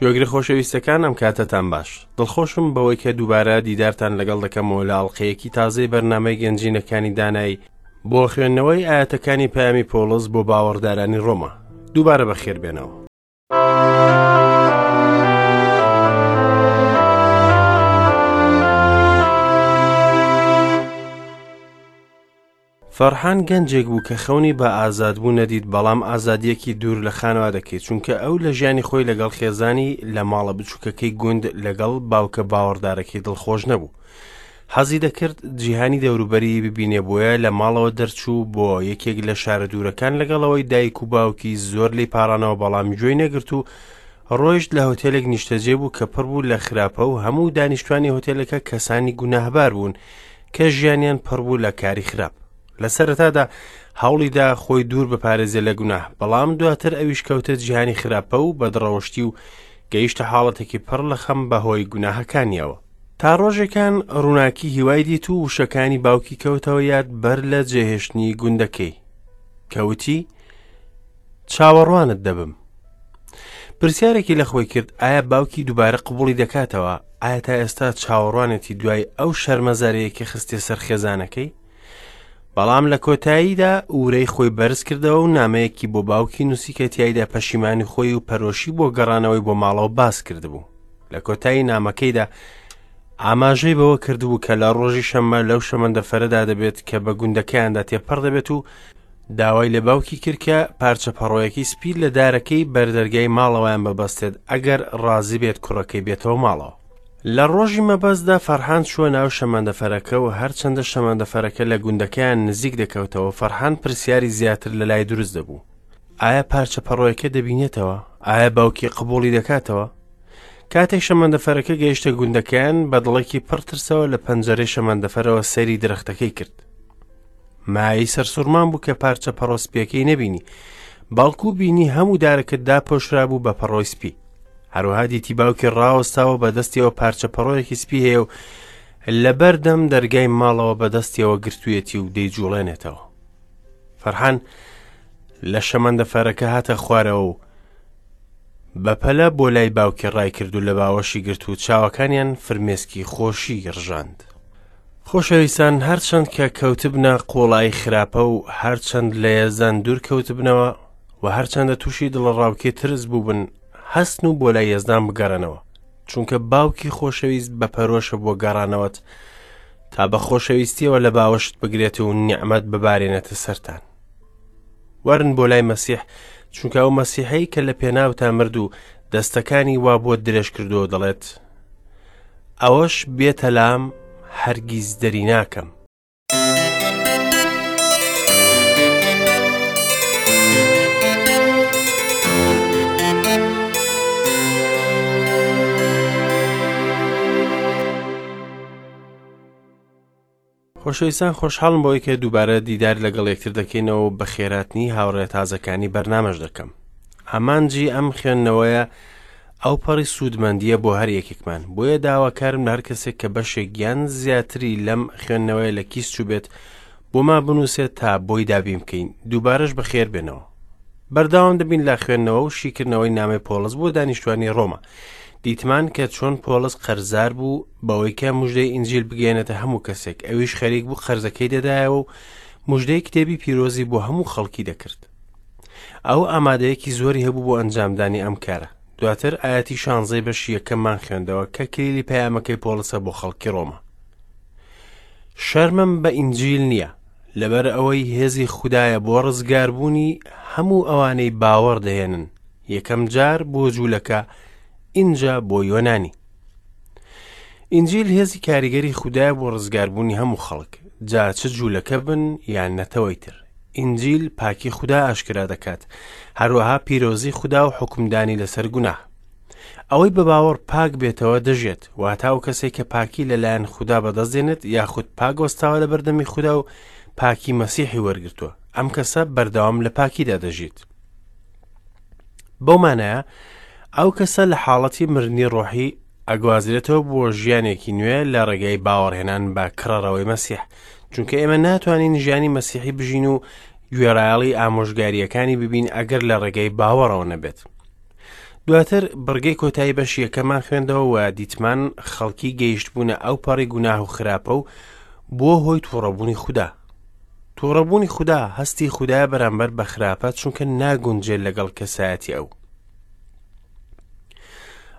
گوێگرە خۆشەویستەکان ئەم کاتەتان باش. دڵخۆشم بەوەی کە دووبارە دیدارتان لەگەڵ دەکەمەوە لە ئەڵقەیەکی تازەی بەرنامەی گەنجینەکانی دانایی بۆ خوێندنەوەی ئاەتەکانی پەیامی پۆڵس بۆ باوەڕدارانی ڕۆما. دووبارە بەخێر بێنەوە. فەرحان گەنجێک بوو کە خەونی بە ئازادبوون نەدیت، بەڵام ئازادییەکی دوور لە خانەوادەکەی، چونکە ئەو لە ژیانی خۆی لەگەڵ خێزانی لە ماڵە بچووکەکەی گوند لەگەڵ باوکە باوەڕدارەکەی دڵخۆش نەبوو. حەزی دەکرد جیهانی دەوروبەری ببینێ بۆیە لە ماڵەوە دەرچوو بۆ یەکێک لە شارە دوورەکان لەگەڵ ئەوەی دایک و باوکی زۆر لێی پاڕانەوە بەڵام گوێی نەگرت و ڕۆیشت لە هۆتێلێک نیشتەجێ بوو کە پڕ بوو لە خراپە و هەموو دانیشتوانی هۆتێلەکە کەسانی گوناهبار بوون کە ژیانیان پڕ بوو لە کاری خراپ. لە سەرەتادا هەوڵیدا خۆی دوور بپارێزێ لە گوناه، بەڵام دواتر ئەویش کەوتە جیهانی خراپە و بەدڕەوشتی و گەیشتە حاڵەتێکی پڕ لە خەم بەهۆی گوناهەکانیەوە. تا ڕۆژێکان ڕووناکی هیوای دیت و وشەکانی باوکی کەوتەوە یاد بەر لە جێهێشتنی گوندەکەی کە وتی چاوەڕوانت دەبم. پرسیارێکی لە خۆی کرد ئایا باوکی دووبارە قبوڵی دەکاتەوە؟ ئایا تا ئێستا چاوەڕوانێتی دوای ئەو شەرمەزارییەی کە خستیە سەر خێزانەکەی؟ بەڵام لە کۆتاییدا ورەی خۆی بەرز کردەوە و نامەیەکی بۆ باوکی نووسی کە تیایدا پەشیمانی خۆی و پەرۆشی بۆ گەڕانەوەی بۆ ماڵەوە باس کردبوو. لە کۆتایی نامەکەیدا ئاماژەی بەوە کردبوو کە لە ڕۆژی شەممە لەو شەمەندەفەرەدا دەبێت کە بە گوندەکەیاندا تێپەڕ دەبێت و داوای لە باوکی کرد کە پارچە پەڕۆیەکی سپی لە دارەکەی بەردەرگای ماڵەوەیان ببەستێت ئەگەر ڕازی بێت کوڕەکەی بێتەوە ماڵەوە. لە ڕۆژی مەبەستدا فەرحان چووە ناو شەمەندەفەرەکە و هەرچەندە شەمەندەفەرەکە لە گوندەکەیان نزیک دەکەوتەوە فەرحان پرسیاری زیاتر لە لای دروست دەبوو. ئایا پارچە پەڕۆیەکە دەبینێتەوە؟ ئایا باوکی قبوڵی دەکاتەوە؟ کاتێک شەمەندەفەرەکە گەیشتە گوندەکەیان بە دڵێکی پڕ ترسەوە لە پەنجەرەی شەمەندەفەرەوە سەیری درەختەکەی کرد. مایەی سەرسوڕمان بوو کە پارچە پەڕۆ سپیەکەی نەبینی بەڵکو بینی هەموو دارەکە داپۆشرابوو بە پەڕۆی سپی هەروەها دیتی باوکی ڕاوەستاوە بە دەستیەوە پارچە پەڕۆیەکی سپی هەیە و لەبەردەم دەرگای ماڵەوە بە دەستیەوە گرتوویەتی و دەیجوڵێنێتەوە فەرحان لە شەمەندەفەرەکە هاتە خوارەوە و بەپەلە بۆ لای باوکی ڕای کرد و لە باوەشی گرت و چاوەکانیان فرمێسکی خۆشی ڕژاند. خۆشەویستان هەرچەند کە کەوتبنە قوڵایی خراپە و هەرچەند لە یەزدان دوور کەوتبنەوە و هەرچەندە تووشی دڵەڕاوکێ ترس بووبن هەستن و بۆ لای یەزدان بگەڕێنەوە چونکە باوکی خۆشەویست بە پەرۆشە بۆ گەڕانەوەت تا بە خۆشەویستیەوە لە باوەشت بگرێت و نیعمەت ببارێنێتە سەرتان وەرن بۆ لای مەسیح چونکە ئەو مەسیحەی کە لە پێناوتا مرد و دەستەکانی وا بۆت درێژ کردووە دەڵێت ئەوەش بێتە لام هەرگیز دەری ناکەم. خۆشەویستان خۆشحاڵم بەوەی کە دووبارە دیدار لەگەڵ یەکتر دەکەینەوە و بەخێراتنی هاوڕێ تازەکانی بەرنامەش دەکەم. ئامانجی ئەم خوێندنەوەیە ئەو پەڕی سوودمەندییە بۆ هەر یەکێکمان، بۆیە داواکارم لە هەر کەسێک کە بەشێک یان زیاتری لەم خوێندنەوەیە لە کیس چووبێت بۆمان بنووسێت تا بۆی دابین بکەین. دووبارەش بەخێر بێنەوە. بەردەوام دەبین لە خوێندنەوە و شیکردنەوەی نامەی پۆڵس بۆ دانیشتوانی ڕۆما. دیتمان کە چۆن پۆڵس قەرزار بوو بەوەی کە مژدەی ئینجیل بگەیەنێتە هەموو کەسێک، ئەویش خەریک بوو قەرزەکەی دەدایەوە و مژدەی کتێبی پیرۆزی بۆ هەموو خەڵکی دەکرد. ئەو ئامادەیەکی زۆری هەبوو بۆ ئەنجامدانی ئەم کارە. دواتر ئایەتی شانزەی بەشی یەکەممان خوێندەوە کە کلیلی پەیامەکەی پۆڵسە بۆ خەڵکی ڕۆما. شەرمم بە ئینجیل نییە، لەبەر ئەوەی هێزی خودایە بۆ ڕزگاربوونی هەموو ئەوانەی باوەڕ دەهێنن، یەکەم جار بۆ جوولەکە ئینجا بۆ یۆنانی. ئینجیل هێزی کاریگەری خودایە بۆ ڕزگاربوونی هەموو خەڵک، جا چ جوولەکە بن یان نەتەوەی تر. ئینجیل پاکی خودا ئاشکرا دەکات، هەروەها پیرۆزی خودا و حوکمدانی لەسەر گوناه. ئەوەی بە باوەڕ پاک بێتەوە دەژێت، واتە ئەو کەسێک کە پاکی لەلایەن خودا بەدەست دێنێت یاخود پاک وەستاوە لە بەردەمی خودا و پاکی مەسیحی وەرگرتووە، ئەم کەسە بەردەوام لە پاکیدا دەژیت. بەو مانایە ئەو کەسە لە حاڵەتی مردنی ڕۆحی ئەگوازرێتەوە بۆ ژیانێکی نوێ لە ڕێگەی باوەڕهێنان بە کڕەڕەوەی مەسیح چونکە ئێمە ناتوانین ژیانی مەسیحی بژین و گوێڕایەڵی ئامۆژگارییەکانی ببین ئەگەر لە ڕێگەی باوەڕەوە نەبێت. دواتر بڕگەی کۆتایی بەشی یەکەمان خوێندەوە و دیتمان خەڵکی گەیشتبوونە ئەو پەڕی گوناه و خراپە و بووە هۆی تووڕەبوونی خودا. تووڕەبوونی خودا هەستی خودایە بەرامبەر بە خراپە چونکە ناگونجێت لەگەڵ کەسایەتی ئەو.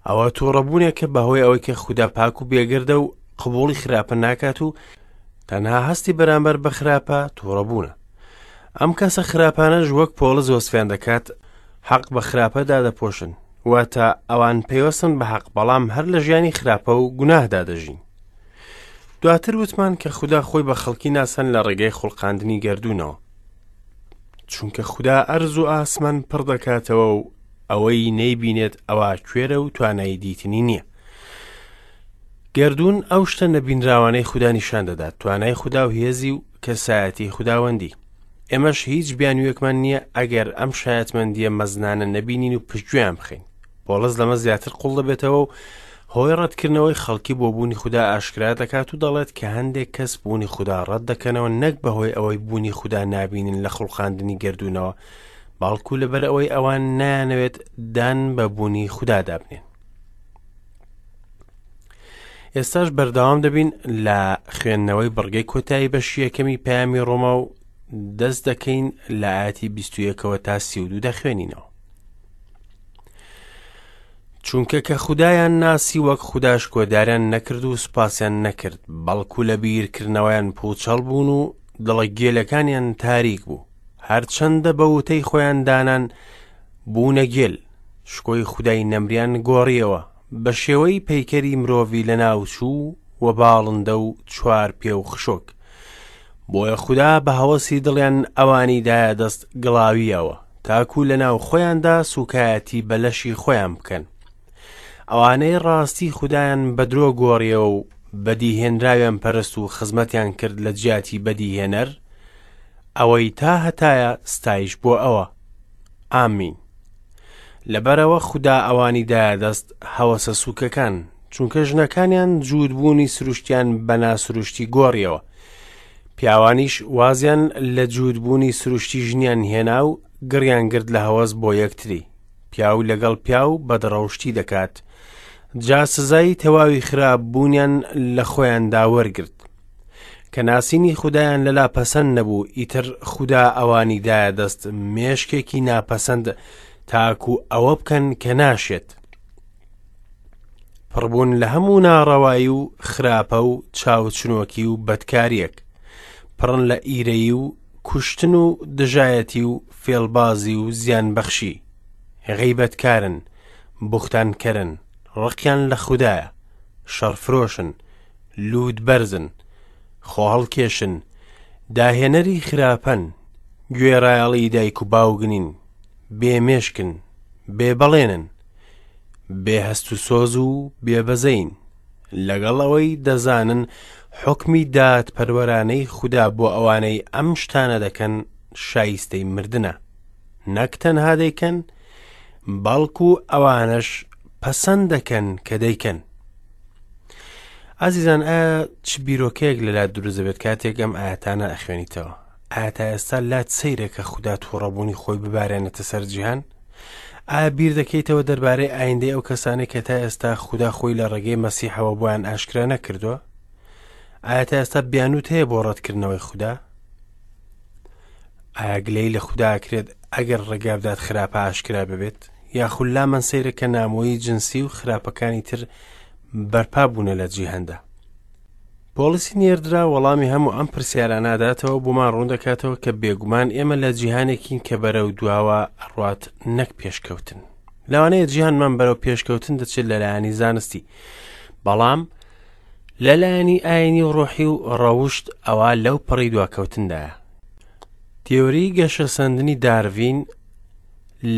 ئەوە تووڕەبوونێکە بەهۆی ئەوەی کە خودا پاک و بێگەردە و قبوڵی خراپە ناکات و تەنها هەستی بەرامبەر بە خراپە تووڕەبوونە. ئەم کەسە خراپانەش وەک پۆڵس وەسفیان دەکات حەق بە خراپە دادەپۆشن، واتە ئەوان پەیوەستن بە حەق بەڵام هەر لە ژیانی خراپە و گوناهدا دەژین. دواتر وتمان کە خودا خۆی بە خەڵکی ناسان لە ڕێگەی خوڵقاندنی گەردوونەوە. چونکە خودا ئەرز و ئاسمان پڕ دەکاتەوە و ئەوەی نەیبینێت ئەوا کوێرە و توانای دیتنی نییە. گەردوون ئەو شتە نەبینراوانەی خودا نیشان دەدات، توانای خودا و هێزی و کەسایەتی خوداوەندی. ئێمەش هیچ بیانوویەکمان نییە ئەگەر ئەم شایەتمەندییە مەزنانە نەبینین و پشتگوێیان بخەین. پۆڵس لەمە زیاتر قوڵ دەبێتەوە و هۆی ڕەتکردنەوەی خەڵکی بۆ بوونی خودا ئاشکرا دەکات و دەڵێت کە هەندێک کەس بوونی خودا ڕەت دەکەنەوە نەک بەهۆی ئەوەی بوونی خودا نابینن لە خوڵقاندنی گەردوونەوە، بەڵکو لەبەر ئەوەی ئەوان نایانەوێت دان بە بوونی خودادا بنێن. ئێستاش بەردەوام دەبین لە خوێندنەوەی بڕگەی کۆتایی بەشی یەکەمی پەیامی ڕۆما و دەست دەکەین لە ئاەتی 21ەوە تا 32 دەخوێنینەوە. چونکە کە خودایان ناسی وەک خودا شکۆداریان نەکرد و سوپاسیان نەکرد، بەڵکو لە بیرکردنەوەیان پوچەڵ بوون و دڵە گێلەکانیان تاریک بوو. هەرچەندە بە وتەی خۆیان دانان بوونە گێل، شکۆی خودای نەمریان گۆڕیەوە بە شێوەی پەیکەری مرۆڤی لەناوچوو و باڵندە و چوار پێ و خشۆک. بۆیە خودا بە هەوەسی دڵیان ئەوانی دایە دەست گڵاوییەوە، تاکو لەناو خۆیاندا سووکایەتی بە لەشی خۆیان بکەن. ئەوانەی ڕاستی خودایان بە درۆ گۆڕیەوە و بەدیهێنراویان پەرست و خزمەتیان کرد لە جیاتی بەدیهێنەر، ئەوەی تا هەتایە ستایش بۆ ئەوە. ئامین. لەبەرئەوە خودا ئەوانی دایە دەست هەوەسە سووکەکان، چونکە ژنەکانیان جووتبوونی سروشتیان بە ناسروشتی گۆڕیەوە. پیاوانیش وازیان لە جووتبوونی سروشتی ژنیان هێنا و گڕیان گرت لە هەوەس بۆ یەکتری. پیاو لەگەڵ پیاو بەدڕەوشتی دەکات. جا سزای تەواوی خراپ بوونیان لە خۆیاندا وەرگرت. کە ناسینی خودایان لەلا پەسەند نەبوو، ئیتر خودا ئەوانی دایە دەست مێشکێکی ناپەسەند تاکو ئەوە بکەن کە ناشێت. پڕبوون لە هەموو ناڕەوایی و خراپە و چاوچنۆکی و بەدکاریەک. پڕن لە ئیرەیی و کوشتن و دژایەتی و فێڵبازی و زیانبەخشی. غەیبەتکارن، بوختانکەرن، ڕقیان لە خودایە، شەڕفرۆشن، لووتبەرزن، خۆهەڵکێشن، داهێنەری خراپەن، گوێڕایەڵی دایک و باوک نین، بێ مێشکن، بێ بەڵێنن، بێ هەست و سۆز و بێ بەزەین. لەگەڵ ئەوەی دەزانن حوکمی دادپەروەرانەی خودا بۆ ئەوانەی ئەم شتانە دەکەن شایستەی مردنە، نەک تەنها دەیکەن، بەڵکو ئەوانەش پەسەند دەکەن کە دەیکەن. ئازیزان ئایا چ بیرۆکەیەک لەلات دروست دەبێت کاتێک ئەم ئاەتانە ئەخوێنیتەوە؟ ئایا تا ئێستا لات سەیرە کە خودا تووڕەبوونی خۆی ببارێنێتە سەر جیهان؟ ئایا بیر دەکەیتەوە دەربارەی ئایندەی ئەو کەسانەی کە تا ئێستا خودا خۆی لە ڕێگەی مەسیحەوە بۆیان ئاشکرا نەکردووە؟ ئایا تا ئێستا بیانوت هەیە بۆ ڕەتکردنەوەی خودا؟ ئایا گلەیی لە خودا ئەکرێت ئەگەر ڕێگا بدات خراپە ئاشکرا ببێت؟ یاخود لامان سەیرە کە نامۆیی جنسی و خراپەکانی تر بەرپا بوونە لە جیهاندا؟ پۆڵسی نێردرا وەڵامی هەموو ئەم پرسیارانە ئەداتەوە بۆمان ڕوون دەکاتەوە کە بێگومان ئێمە لە جیهانێکین کە بەرەو دواوە ئەڕوات نەک پێشکەوتن. لەوانەیە جیهانمان بەرەو پێشکەوتن دەچێت لەلایەنی زانستی، بەڵام لەلایەنی ئاینی و ڕۆحی و ڕەوشت ئەوا لەو پەڕی دواکەوتندایە. تیۆری گەشەسەندنی دارڤین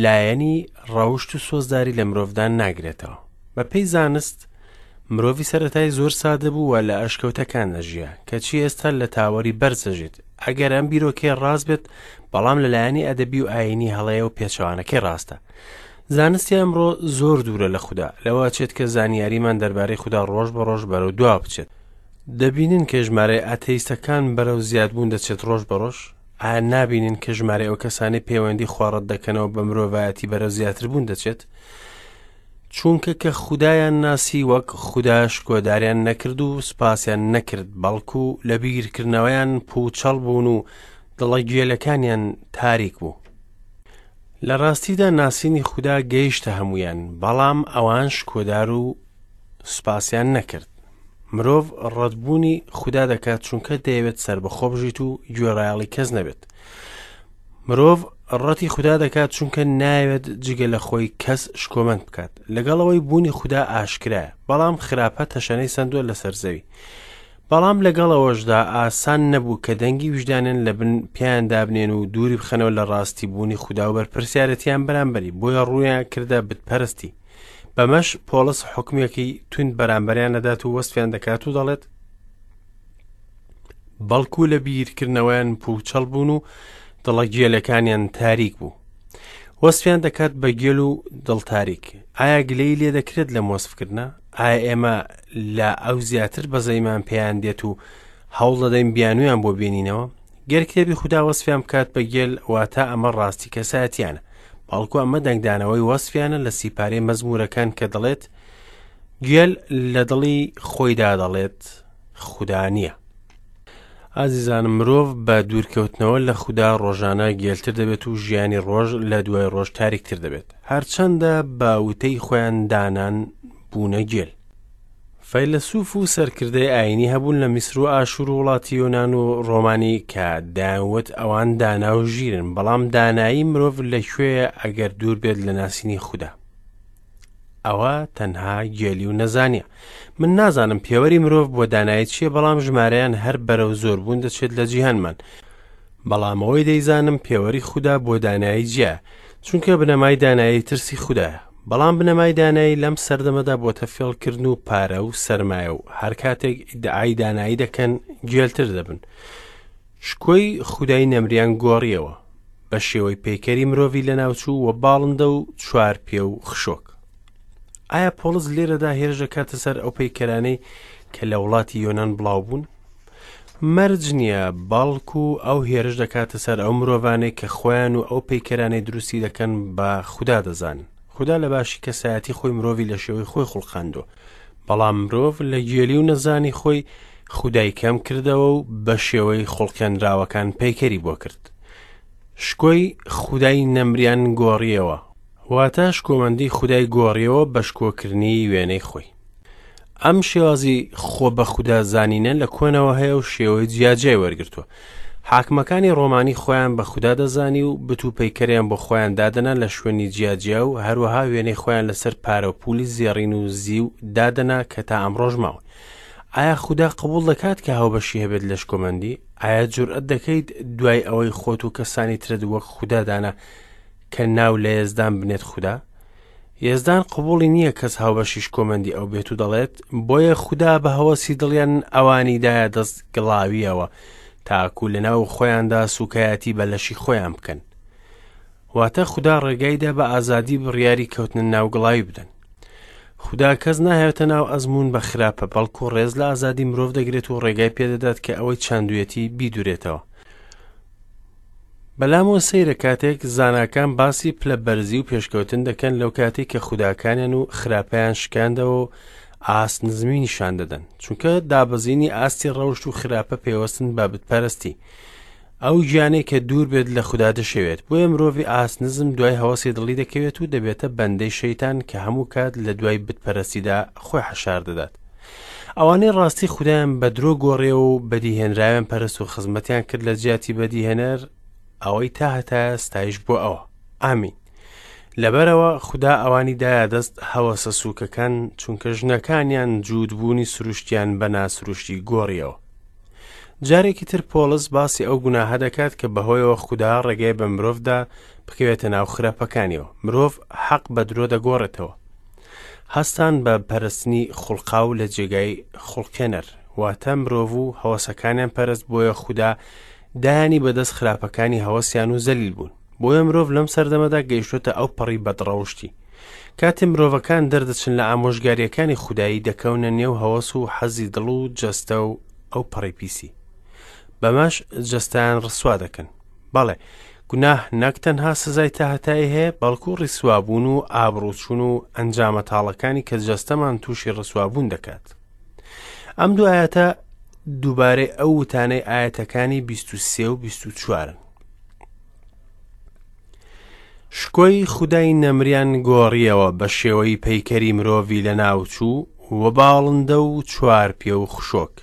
لایەنی ڕەوشت و سۆزداری لە مرۆڤدا ناگرێتەوە. بەپێی زانست مرۆڤی سەرەتای زۆر سادە بوو و لە ئەشکەوتەکان دەژیا، کەچی ئێستا لە تاوەری بەرز دەژێت. ئەگەر ئەم بیرۆکەیە ڕاست بێت، بەڵام لەلایەنی ئەدەبی و ئایینی هەڵەیە و پێچەوانەکەی ڕاستە. زانستی ئەمڕۆ زۆر دوورە لە خودا، لەوە ئەچێت کە زانیاریمان دەربارەی خودا ڕۆژ بە ڕۆژ بەرەو دوا بچێت. دەبینن کە ژمارەی ئاتەیستەکان بەرەو زیادبوون دەچێت ڕۆژ بە ڕۆژ؟ ئایا نابینن کە ژمارەی ئەو کەسانەی پەیوەندی خوا ڕەت دەکەنەوە بە مرۆڤایەتی بەرەو زیاتربوون دەچێت؟ چونکە کە خودایان ناسی وەک خودا شکۆداریان نەکرد و سوپاسیان نەکرد، بەڵکو لە بیرکردنەوەیان پووچەڵ بوون و دڵە گێلەکانیان تاریک بوو. لە ڕاستیدا ناسینی خودا گەیشتە هەموویان، بەڵام ئەوان شکۆدار و سوپاسیان نەکرد. مرۆڤ ڕەتبوونی خودا دەکات چونکە دەیەوێت سەربەخۆ بژیت و گوێڕایەڵی کەس نەبێت. مرۆڤ ڕەتی خودا دەکات چونکە نایەوێت جگە لە خۆی کەس شکۆمەند بکات. لەگەڵ ئەوەی بوونی خودا ئاشکرایە، بەڵام خراپە تەشەنەی سەندووە لەسەر زەوی. بەڵام لەگەڵ ئەوەشدا ئاسان نەبوو کە دەنگی ویژدانیان لە بن پێیان دابنێن و دووری بخەنەوە لە ڕاستی بوونی خودا و بەرپرسیارەتیان بەرامبەری، بۆیە ڕوویان کردە بتپەرستی. بەمەش پۆڵس حوکمێکی توند بەرامبەریان دەدات و وەسفیان دەکات و دەڵێت بەڵکو لە بیرکردنەوەیان پووچەڵ بوون و دڵە گێلەکانیان تاریک بوو. وەسفیان دەکات بە گێل و دڵتاریک. ئایا گلەیی لێ دەکرێت لەم وەسفکردنە؟ ئایا ئێمە لە ئەو زیاتر بەزەیمان پێیان دێت و هەوڵ دەدەین بیانویان بۆ بێنینەوە؟ گەر کتێبی خودا وەسفیان بکات بە گێل، واتە ئەمە ڕاستی کەسایەتیانە. بەڵکو ئەمە دەنگدانەوەی وەسفیانە لە سیپارەی مەزموورەکان کە دەڵێت گێل لە دڵی خۆیدا دەڵێت خودا نییە. ئازیزانم مرۆڤ بە دوورکەوتنەوە لە خودا ڕۆژانە گێلتر دەبێت و ژیانی ڕۆژ لە دوای ڕۆژ تاریکتر دەبێت هەرچەندە بە وتەی خۆیان دانان بوونە گێل. فەیلەسوف و سەرکردەی ئایینی هەبوون لە میسر و ئاشور و وڵاتی یۆنان و ڕۆمانی کە دەیانوت ئەوان دانا و ژیرن، بەڵام دانایی مرۆڤ لە کوێیە ئەگەر دوور بێت لە ناسینی خودا؟ ئەوە تەنها گێلی و نەزانیە. من نازانم پێوەری مرۆڤ بۆ دانایی چییە، بەڵام ژمارەیان هەر بەرەو زۆربوون دەچێت لە جیهانمان. بەڵام ئەوەی دەیزانم پێوەری خودا بۆ دانایی جیایە، چونکە بنەمای دانایی ترسی خودایە. بەڵام بنەمای دانایی لەم سەردەمەدا بۆتە فێڵکردن و پارە و سەرمایە و هەر کاتێک ئیدعای دانایی دەکەن گێلتر دەبن. شکۆی خودای نەمریان گۆڕیەوە بە شێوەی پەیکەری مرۆڤی لەناوچوو و باڵندە و چوار پێ و خشۆک. ئایا پۆڵس لێرەدا هێرش دەکاتە سەر ئەو پەیکەرانەی کە لە وڵاتی یۆنان بڵاو بوون؟ مەرج نییە، بەڵکو ئەو هێرش دەکاتە سەر ئەو مرۆڤانەی کە خۆیان و ئەو پەیکەرانەی دروستی دەکەن بە خودا دەزانن. خودا لە باشی کەسایەتی خۆی مرۆڤی لە شێوەی خۆی خوڵقاندووە، بەڵام مرۆڤ لە گێلی و نەزانی خۆی خودای کەم کردەوە و بە شێوەی خوڵقێنراوەکان پەیکەری بۆ کرد. شکۆی خودای نەمریان گۆڕیەوە، واتە شکۆمەندی خودای گۆڕیەوە بە شکۆکردنی وێنەی خۆی. ئەم شێوازی خۆ بە خودا زانینە لە کۆنەوە هەیە و شێوەی جیاجیای وەرگرتووە. حاکمەکانی ڕۆمانی خۆیان بە خودا دەزانی و بت و پەیکەریان بۆ خۆیان دادەنا لە شوێنی جیاجیا و هەروەها وێنەی خۆیان لەسەر پارە و پولی زێڕین و زیو دادەنا کە تا ئەمڕۆش ماون. ئایا خودا قبوڵ دەکات کە هاوبەشی هەبێت لە شکۆمەندی؟ ئایا جورئەت دەکەیت دوای ئەوەی خۆت و کەسانی ترت وەک خودا دانا کە ناو لە یەزدان بنێت خودا؟ یەزدان قبوڵی نییە کەس هاوبەشی شکۆمەندی ئەو بێت و دەڵێت، بۆیە خودا بە هەوەسی دڵیان ئەوانی دایە دەست گڵاوییەوە، تاکو لەناو خۆیاندا سووکایەتی بە لەشی خۆیان بکەن. واتە خودا ڕێگای دا بە ئازادی بڕیاری کەوتنە ناو گڵاوی بدەن. خودا کەس ناهێتە ناو ئەزموون بە خراپە، بەڵکو ڕێز لە ئازادی مرۆڤ دەگرێت و ڕێگای پێدەدات کە ئەوەی چاندوویەتی بیدورێتەوە. بەلامەوە سەیرە کاتێک زاناکان باسی پلە بەرزی و پێشکەوتن دەکەن لەو کاتێک کە خوداکانیان و خراپەیان شکاندەوە و ئاست نزمی نیشان دەدەن چونکە دابەزینی ئاستی ڕەوشت و خراپە پێوەستن بە بتپەرستی ئەو گیانەی کە دوور بێت لە خودا دەشێوێت بۆیە مرۆڤی ئاست نزم دوای هەوەسی دڵی دەکەوێت و دەبێتە بەندەی شەیتان کە هەموو کات لە دوای بتپەرستیدا خۆی حەشار دەدات ئەوانەی ڕاستی خودایان بە درۆ گۆڕیەوە و بەدیهێنراویان پەرست و خزمەتیان کرد لە جیاتی بەدیهێنەر ئەوەی تا هەتایە ستایش بۆ ئەوە ئامین لەبەرەوە خودا ئەوانی دایە دەست هەوەسە سووکەکان چونکە ژنەکانیان جووتبوونی سروشتیان بە ناسروشتی گۆڕیەوە جارێکی تر پۆڵس باسی ئەو گوناهە دەکات کە بەهۆیەوە خودا ڕێگەی بە مرۆڤدا بکەوێتە ناو خراپەکانیەوە مرۆڤ حەق بە درۆ دەگۆڕێتەوە هەستان بە پەرستنی خوڵقاو لە جێگای خوڵقێنەر، واتە مرۆڤ و هەوەسەکانیان پەرست بۆیە خودا دایانی بەدەست خراپەکانی هەوەسیان و زەلیل بوون. بۆیە مرۆڤ لەم سەردەمەدا گەیشتۆتە ئەو پەڕی بەدڕەوشتی. کاتێ مرۆڤەکان دەردەچن لە ئامۆژگاریەکانی خودایی دەکەونە نێو هەوەس و حەزی دڵ و جەستە و ئەو پەڕی پیسی. بەمەش جەستەیان ڕسوا دەکەن. بەڵێ، گوناه نەک تەنها سزای تاهەتایی هەیە، بەڵکو ڕیسوابوون و ئابڕووچوون و ئەنجامە تاڵەکانی کە جەستەمان تووشی ڕسوابوون دەکات. ئەم دوو ئایەتە دووبارەی ئەو وتانەی ئایەتەکانی 23 و 24ن. شکۆی خودای نەمریان گۆڕیەوە بە شێوەی پەیکەری مرۆڤی لەناوچوو و باڵندە و چوارپێ و خشۆک.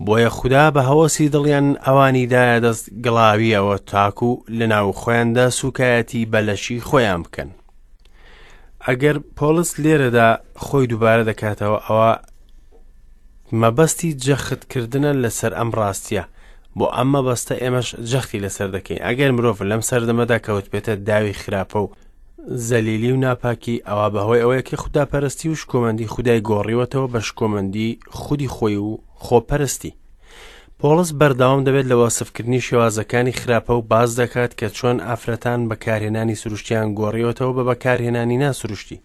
بۆیە خودا بە هەوەسی دڵیان ئەوانی دایە دەست گڵاویەوە تاکو لەناو خۆیاندا سوکایەتی بە لەشی خۆیان بکەن. ئەگەر پۆڵس لێرەدا خۆی دووبارە دەکاتەوە ئەوە مەبەستی جەختکردنە لەسەر ئەم ڕاستیە بۆ ئەم مەبەستە ئێمەش جەختی لەسەر دەکەین ئەگەر مرۆڤ لەم سەردەمەدا کەوتبێتە داوی خراپە و زەلیلی و ناپاکی ئەوە بەهۆی ئەوەیە کە خوداپەرستی و شکۆمەندی خودای گۆڕیوەتەوە بە شکۆمەندی خودی خۆی و خۆپەرستی. پۆڵس بەردەوام دەبێت لە وەسفکردنی شێوازەکانی خراپە و باس دەکات کە چۆن ئافرەتان بەکارهێنانی سروشتیان گۆڕیوەتەوە بە بەکارهێنانی ناسروشتی.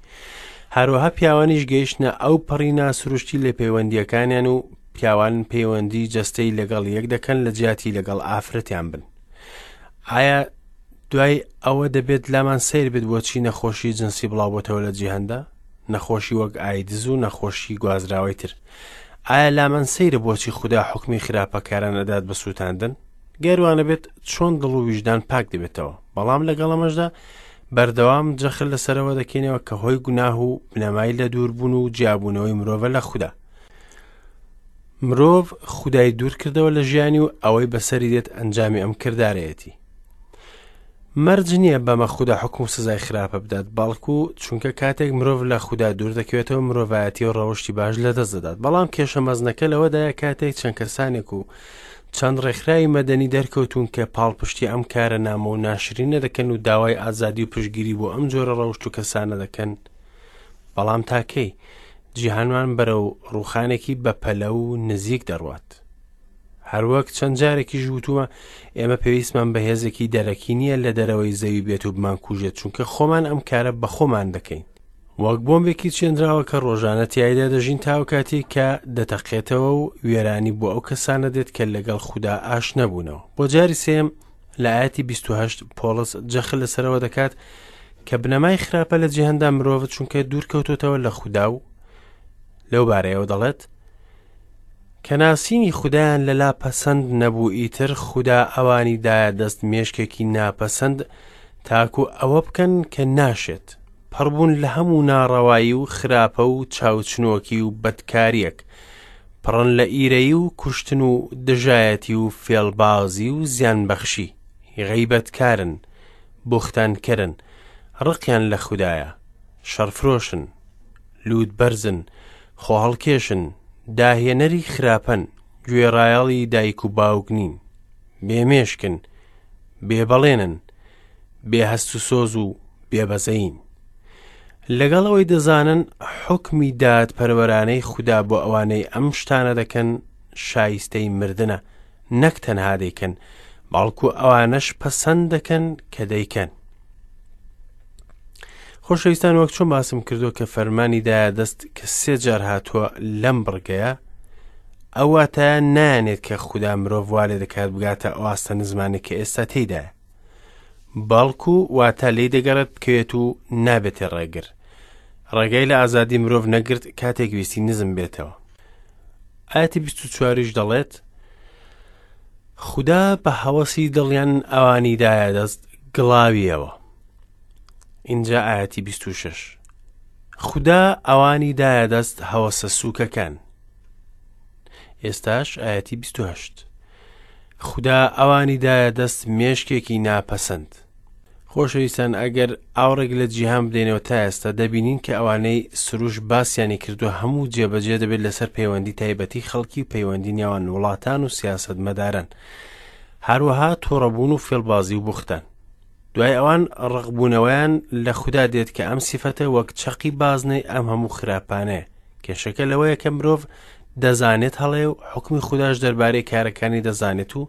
هەروەها پیاوانیش گەیشتنە ئەو پەڕی ناسروشتی لە پەیوەندییەکانیان و پیاوان پەیوەندی جەستەی لەگەڵ یەک دەکەن لە جیاتی لەگەڵ ئافرەتیان بن. ئایا دوای ئەوە دەبێت لامان سەیر بێت بۆچی نەخۆشی جنسی بڵاوبۆتەوە لە جیهاندا؟ نەخۆشی وەک ئایدز و نەخۆشی گوازراوەی تر. ئایا لامان سەیرە بۆچی خودا حوکمی خراپەکاران ئەدات بە سووتاندن؟ گەر وانەبێت چۆن دڵ و ویژدان پاک دەبێتەوە؟ بەڵام لەگەڵ ئەمەشدا بەردەوام جەخت لەسەرەوە دەکەینەوە کە هۆی گوناه و بنەمای لە دووربوون و جیابوونەوەی مرۆڤە لە خودا. مرۆڤ خودای دوور کردەوە لە ژیانی و ئەوەی بەسەری دێت ئەنجامی ئەم کردارەیەتی. مەرج نییە بەمە خودا حوکم و سزای خراپە بدات، بەڵکو چونکە کاتێک مرۆڤ لە خودا دوور دەکەوێتەوە مرۆڤایەتی و ڕەوشتی باش لەدەست دەدات. بەڵام کێشە مەزنەکە لەوەدایە کاتێک چەند کەسانێک و چەند ڕێکخراوی مەدەنی دەرکەوتوون کە پاڵپشتی ئەم کارە نامۆ و ناشرینە دەکەن و داوای ئازادی و پشتگیری بۆ ئەم جۆرە ڕەوشت و کەسانە دەکەن، بەڵام تا کەی؟ جیهانمان بەرەو ڕووخانێکی بەپەلە و نزیک دەڕوات. هەروەک چەند جارێکیش وتومە ئێمە پێویستمان بە هێزێکی دەرەکی نییە لە دەرەوەی زەوی بێت و بمانکوژێت چونکە خۆمان ئەم کارە بە خۆمان دەکەین وەک بۆمبێکی چێنراوە کە ڕۆژانە تیایدا دەژین تاو کاتێک کە دەتەقێتەوە و وێرانی بۆ ئەو کەسانە دێت کە لەگەڵ خودا ئاش نەبوونەوە بۆ جاری سێم لە ئاەتی 28 پۆڵس جەخت لەسەرەوە دەکات کە بنەمای خراپە لە جیهاندا مرۆڤ چونکە دوور کەوتۆتەوە لە خودا و لەو بارەیەوە دەڵێت کە ناسینی خودایان لەلا پەسەند نەبوو ئیتر خودا ئەوانی دایە دەست مێشکێکی ناپەسەند تاکو ئەوە بکەن کە ناشێت پڕبوون لە هەموو ناڕەوایی و خراپە و چاوچنۆکی و بەدکاریەک پڕن لە ئیرەیی و کوشتن و دژایەتی و فێڵبازی و زیانبەخشی غەیبەتکارن بوختانکەرن ڕقیان لە خودایە شەڕفرۆشن لووتبەرزن، خۆهەڵکێشن، داهێنەری خراپەن، گوێڕایەڵی دایک و باوک نین، بێ مێشکن، بێ بەڵێنن، بێ هەست و سۆز و بێ بەزەیین. لەگەڵ ئەوەی دەزانن حوکمی دادپەروەرانەی خودا بۆ ئەوانەی ئەم شتانە دەکەن شایستەی مردنە، نەک تەنها دەیکەن، بەڵکو ئەوانەش پەسەند دەکەن کە دەیکەن. خۆشەویستان وەک چۆن باسم کردو کە فەرمانی دایە دەست کە سێ جار هاتووە لەم بڕگەیە ئەو واتایە نایەنێت کە خودا مرۆڤ وا لێ دەکات بگاتە ئەو ئاستە نزمانەی کە ئێستا تێیدایە بەڵکو واتە لێی دەگەڕێت بکەوێت و نابێتێ ڕێگر ڕێگای لە ئازادی مرۆڤ نەگرت کاتێک ویستی نزم بێتەوە ئاەتی 24یش دەڵێت خودا بە هەوەسی دڵیان ئەوانی دایە دەست گڵاویەوە ئینجا ئاەتی 26 خودا ئەوانی دایە دەست هەوەسە سووکەکان ئێستاش ئاەتی 28 خودا ئەوانی دایە دەست مێشکێکی ناپەسەند خۆشەویستان ئەگەر ئاوڕێک لە جیهان بدەینەوە تا ئێستا دەبینین کە ئەوانەی سروش باسیانی کردووە هەموو جێبەجێ دەبێت لەسەر پەیوەندی تایبەتی خەڵکی و پەیوەندی نێوان وڵاتان و سیاسەتمەداران هەروەها توڕەبوون و فێڵبازی و بوختان دوای ئەوان ڕقبوونەوەیان لە خودا دێت کە ئەم سیفەتە وەک چەقی بازنەی ئەم هەموو خراپانەیە کێشەکە لەوەیە کە مرۆڤ دەزانێت هەڵەیە و حوکمی خوداش دەربارەی کارەکانی دەزانێت و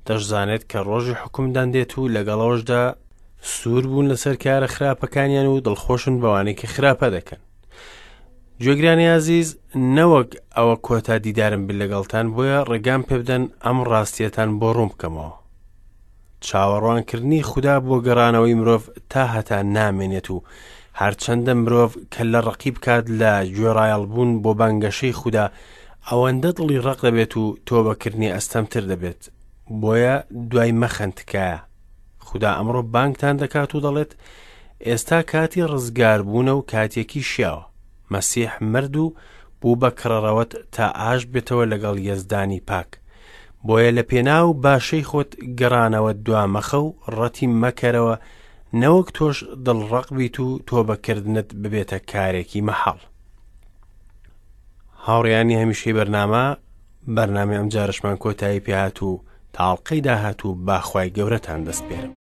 دەشزانێت کە ڕۆژی حوکمدان دێت و لەگەڵەوەشدا سوور بوون لەسەر کارە خراپەکانیان و دڵخۆشن بەوانەی کە خراپە دەکەن گوێگرانی ئازیز نەوەک ئەوە کۆتا دیدارم بێت لەگەڵتان بۆیە ڕێگام پێ بدەن ئەم ڕاستیەتان بۆ ڕوون بکەمەوە. چاوەڕوانکردنی خودا بۆ گەڕانەوەی مرۆڤ تا هەتا نامێنێت و هەرچەندە مرۆڤ کەللە ڕەقی بکات لە گوێڕایەڵبوون بۆ بانگەشەی خودا ئەوەندە دڵی ڕەق دەبێت و تۆبەکردنی ئەستەمتر دەبێت بۆیە دوای مەخەن تکایە خودا ئەمڕۆ بانگتان دەکات و دەڵێت ئێستا کاتی ڕزگاربوونە و کاتێکی شیاوە مەسیح مرد و بوو بە کڕەڕەوەت تا ئاش بێتەوە لەگەڵ یەزدانی پاک بۆیە لە پێناو باشەی خۆت گەڕانەوەت دوا مەخە و ڕەتی مەکەرەوە نەوەک تۆش دڵڕەق بیت و تۆبەکردنت ببێتە کارێکی مەحاڵ. هاوڕێیانی هەمیشەی بەرنامە، بەرنامەی ئەمجارەشمان کۆتایی پێهات و تا ئەڵقەی داهاتوو با خوای گەورەتان دەسپێرم.